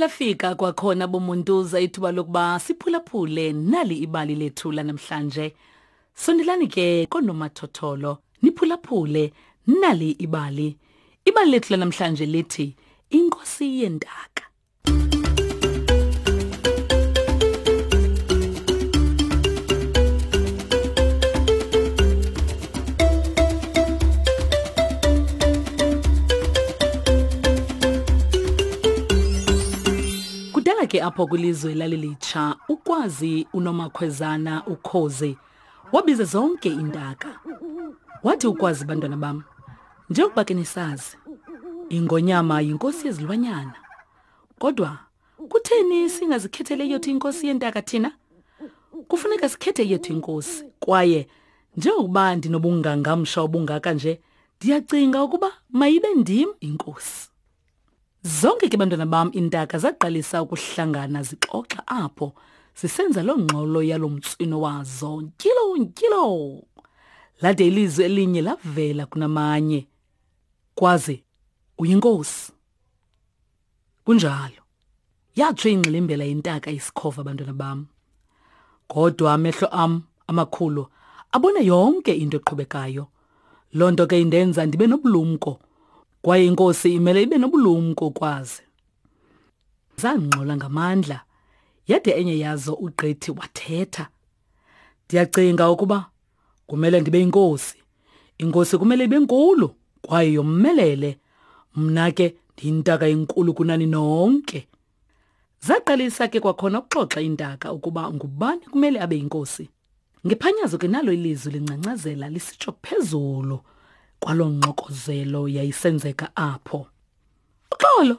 lafika kwakhona bomuntuza ithuba lokuba siphulaphule nali ibali lethu lanamhlanje. Sondelani ke konomathotholo niphulaphule nali ibali. Ibali lethu lanamhlanje lithi Inkosi yentaka. Kudala ke apho kwilizwe lalilitsha ukwazi unomakhwezana ukhozi wabiza zonke iintaka. Wathi ukwazi bantwana bam, njengokuba ke nisazi, ingonyama yinkosi yezilwanyana. Kodwa kutheni singazikhethele yethu inkosi yentaka thina? Kufuneka sikhethe yethu inkosi kwaye njengokuba ndinobungangamsha obungaka nje, ndiyacinga ukuba mayibe ndim inkosi. Zonke ke bantwana bam iintaka zaqalisa ukuhlangana zixoxa apho zisenza loo ngxolo yalo mtswino wazo ntyilo ntyilo. Lade ilizwi elinye lavela kunamanye. Kwaze uyinkosi. Kunjalo. Yatsho ingxilimbela yentaka isikhova bantwana bam. Kodwa amehlo am amakhulu abona yonke into eqhubekayo. Loo nto ke indenza ndibe nobulumko kwaye inkosi imele ibe nobulumko kwazi. Zangxola ngamandla yade enye yazo ugqithi wathetha. Ndiyacinga ukuba kumele ndibe inkosi. Inkosi kumele ibe nkulu kwaye yomelele. Mna ke ndiyintaka enkulu kunani nonke. Zaqalisa ke kwakhona ukuxoxa iintaka ukuba ngubani kumele abe yinkosi. Ngephanyazo ke nalo ilizwi lingcangcazela lisitsho phezulu kwaloo ngxokozelo yayisenzeka apho. Uxolo,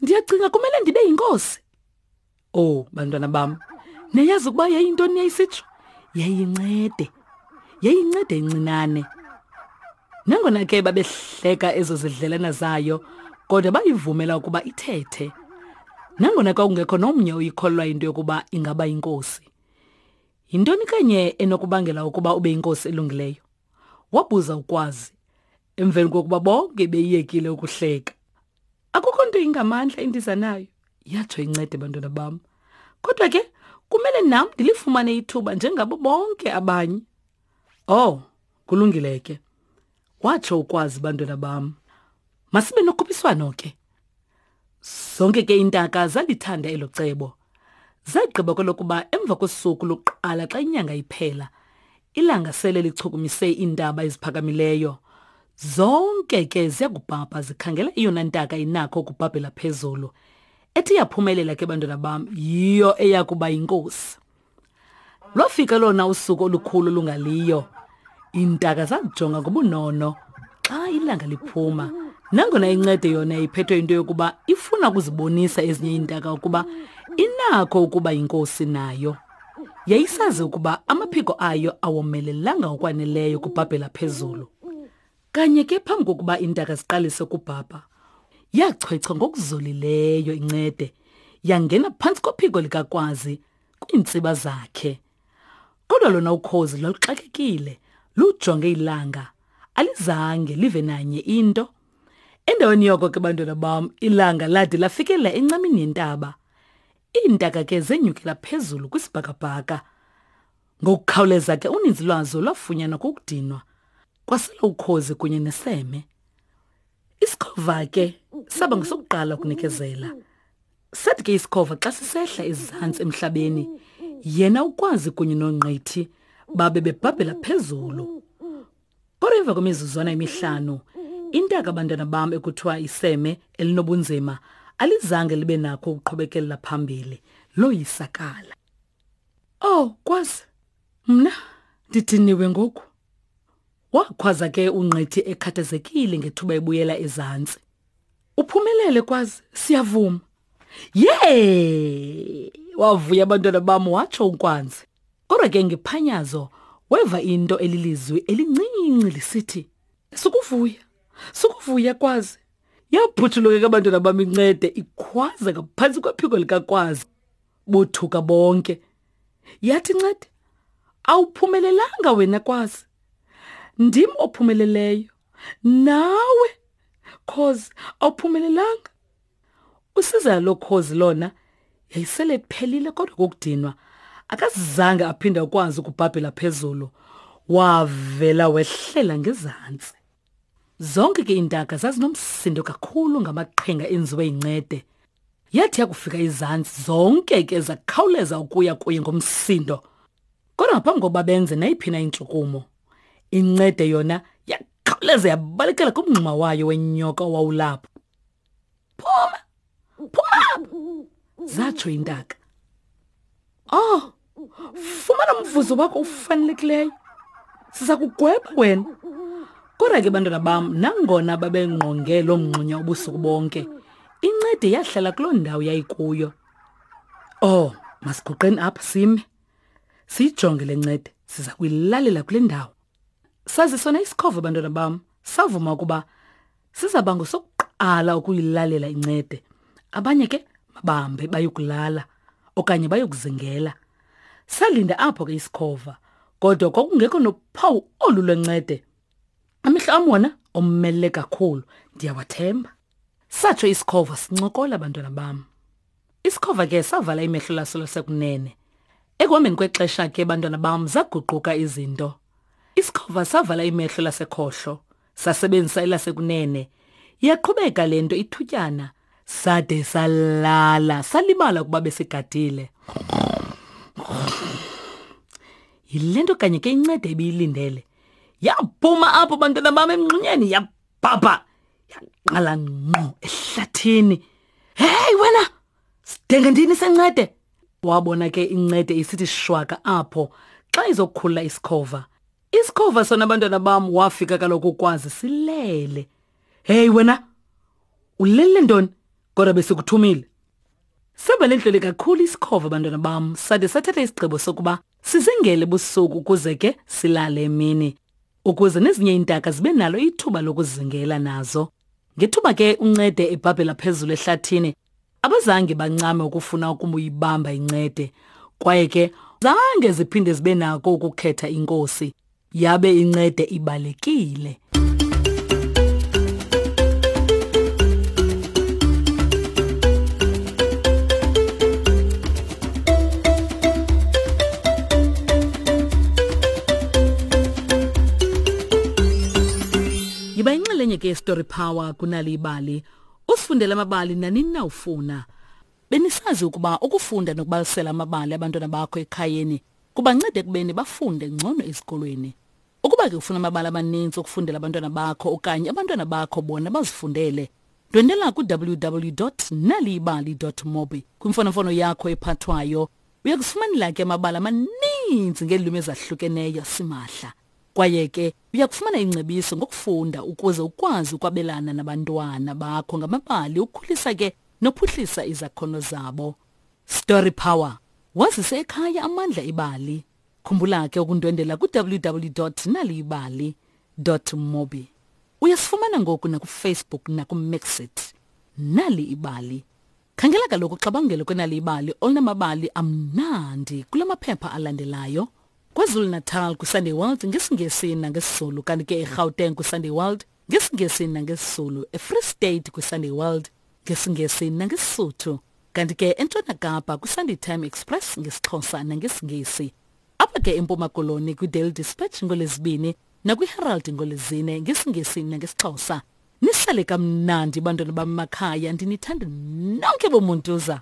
ndiyacinga kumele ndibe yinkosi. Oh, bantwana bam, niyayazi ukuba yayintoni yayisitsho? Yayincede. Yayincede incinane. Nangona ke babehleka ezo zidlelana zayo, kodwa bayivumela ukuba ithethe. Nangona kwakungekho nomnye oyikholwa into yokuba ingaba yinkosi. Yintoni kanye enokubangela ukuba ube yinkosi elungileyo? Wabuza uKwazi, emveni kokuba bonke beyiyekile ukuhleka. Akukho nto ingamandla endiza nayo, yatsho incede bantwana bam. Kodwa ke kumele nam ndilifumane ithuba njengabo bonke abanye. Oh, kulungile ke. Watsho ukwazi bantwana bam. Masibe nokhuphiswano ke. Zonke ke iintaka zalithanda elo cebo. Zagqiba kwelokuba emva kosuku lokuqala xa inyanga iphela, ilanga sele lichukumise iintaba eziphakamileyo. Zonke ke ziyakubhabha zikhangela eyona ntaka inakho ukubhabhela phezulu. Ethi yaphumelela ke bantwana bam yiyo eya kuba yinkosi. Lwafika lona usuku olukhulu olungaliyo. Iintaka zakujonga ngobunono xa ilanga liphuma. Nangona incede yona iphethwe into yokuba ifuna ukuzibonisa ezinye iintaka ukuba inakho ukuba yinkosi nayo. Yayisazi ukuba amaphiko ayo awomelelanga ngokwaneleyo ukubhabhela phezulu. Kanye ke phambi kokuba iintaka ziqalise ukubhabha, yachwechwa ngokuzolileyo incede yangena phantsi kophiko likaKwazi kwiintsiba zakhe. Kodwa lona ukhozi lwaluxakekile lujonge ilanga, alizange live nanye into. Endaweni yoko ke bantwana bam, ilanga lade lafikelela encamini yentaba. Iintaka ke zenyukela phezulu kwisibhakabhaka. Ngokukhawuleza ke uninzi lwazo lwafunyanwa kukudinwa. Kwasela ukhozi kunye neseme. Isikhova ke saba ngesokuqala ukunikezela. Sathi ke isikhova xa sisehla ezantsi emhlabeni, yena ukwazi kunye nongqithi babe bebhabhela phezulu. Kodwa emva kwemizuzwana emihlanu, intaka abantwana bam ekuthiwa iseme elinobunzima alizange libe nakho ukuqhubekelela phambili, loyisakala. Oh, kwazi, mna ndidiniwe ngoku. Wakhwaza ke uNgqithi ekhathazekile ngethuba ebuyela ezantsi. Uphumelele kwazi, siyavuma. Yee! Wavuya abantwana bam watsho uNkwanzi. Kodwa ke ngephanyazo weva into elilizwi elincinci lisithi, Sukuvuya, sukuvuya kwazi. Yaphuthuluka ke abantwana bam incede ikhwaza ngaphantsi kwephiko likaKwazi. Bothuka bonke. Yathi ncede, awuphumelelanga wena kwazi. Ndim ophumeleleyo. Nawe cause awuphumelelanga. Usizela lokhozi lona yayisele iphelile kodwa kokudinwa akazange aphinde akwazi ukubhabhela phezulu wavela wehlela ngezantsi. Zonke ke iintaka zazinomsindo kakhulu ngamaqhinga enziwe yincede. Yathi yakufika izantsi zonke ke zakhawuleza ukuya kuye ngomsindo. Kodwa ngaphambi kokuba benze nayiphi na intshukumo, incede yona yakhawuleza yabalekela kumngxuma wayo wenyoka owawulapho. Phuma! Phuma! Zatsho intaka. Oh, fumana umvuzo wakho ufanelekileyo. Siza kugweba wena. Kodwa ke bantwana bam, nangona babengqonge loo mngxunya ubusuku bonke, incede yahlala kuloo ndawo yayikuyo. Oh, masiguqeni apha sime. Siyijonge le ncede, siza kuyilalela kule ndawo. Sazi sona isikhova bantwana bam, savuma ukuba sizaba ngosokuqala ukuyilalela incede. Abanye ke mabambe bayokulala okanye bayokuzingela. Salinda apho ke isikhova, kodwa kwakungekho nophawu olu lwencede. Amehlo am wona omele kakhulu, ndiyawathemba. Satsho isikhova sincokola bantwana bam. Isikhova ke savala imehlo laso lasekunene. Ekuhambeni kwexesha ke bantwana bam zaguquka izinto. Isikhova savala imehlo lasekhohlo, sasebenzisa elasekunene. Yaqhubeka le nto ithutyana sade salala salibala ukuba besigadile. Yile nto kanye ke incede ibiyilindele. Yaphuma apho bantwana bam emngxunyeni yabhabha yaqala ngqo ehlathini. Hey wena! Sidenge ndini sencede? Wabona ke incede isithi shwaka apho xa izokukhulula isikhova. Isikhova sona abantwana bam wafika kaloku ukwazi silele. Hey wena! Ulele ntoni? Kodwa besikuthumile. Saba lentlele kakhulu isikhova bantwana bam sade sathatha isigqibo sokuba sizingele busuku ukuze ke silale emini ukuze nezinye iintaka zibe nalo ithuba lokuzingela nazo. Ngethuba ke uncede ebhabhela phezulu ehlathini abazange bancame ukufuna ukumuyibamba incede kwaye ke zange ziphinde zibe nako ukukhetha inkosi yabe incede ibalekile. Yiba inxalenye ke Story Power kunali ibali. Usifundele amabali nanini na ufuna. Benisazi ukuba ukufunda nokubalisela amabali abantwana bakho ekhayeni kubanceda ekubeni bafunde ngcono ezikolweni. Ukuba ke ufuna amabali amaninzi okufundela abantwana bakho okanye abantwana bakho bona bazifundele, ndwendela ku-www.naliyibali.mobi kwimfonomfono yakho ephathwayo. Uya kufumanela ke amabali amaninzi ngeelwimi ezahlukeneyo simahla. Kwaye ke uya kufumana ingcebiso ngokufunda ukuze ukwazi ukwabelana nabantwana bakho ngamabali ukhulisa ke nophuhlisa izakhono zabo. Story Power. Wazise ekhaya amandla ebali. Khumbula ke ukundwendela ku-www.naliyibali.mobi. Uyasifumana ngoku nakuFacebook nakuMixit. Nali ibali. Khangela kaloku uxabangelo kwenali ibali olunamabali amnandi kula maphepha alandelayo. KwaZulu-Natal kwiSunday World ngesiNgesi nangesiZulu kanti ke eGauteng kwiSunday World ngesiNgesi nangesiZulu, eFree State kwiSunday World ngesiNgesi nangeSisuthu kanti ke eNtshona Kapa kwiSunday Time Express ngesiXhosa nangesiNgesi. Apha ke eMpuma Koloni kwiDaily Dispatch ngoLwezibini nakwiHerald ngoLwezine ngesiNgesi nangesiXhosa. Nisale kamnandi bantwana bam makhaya ndinithanda nonke bomuntuza.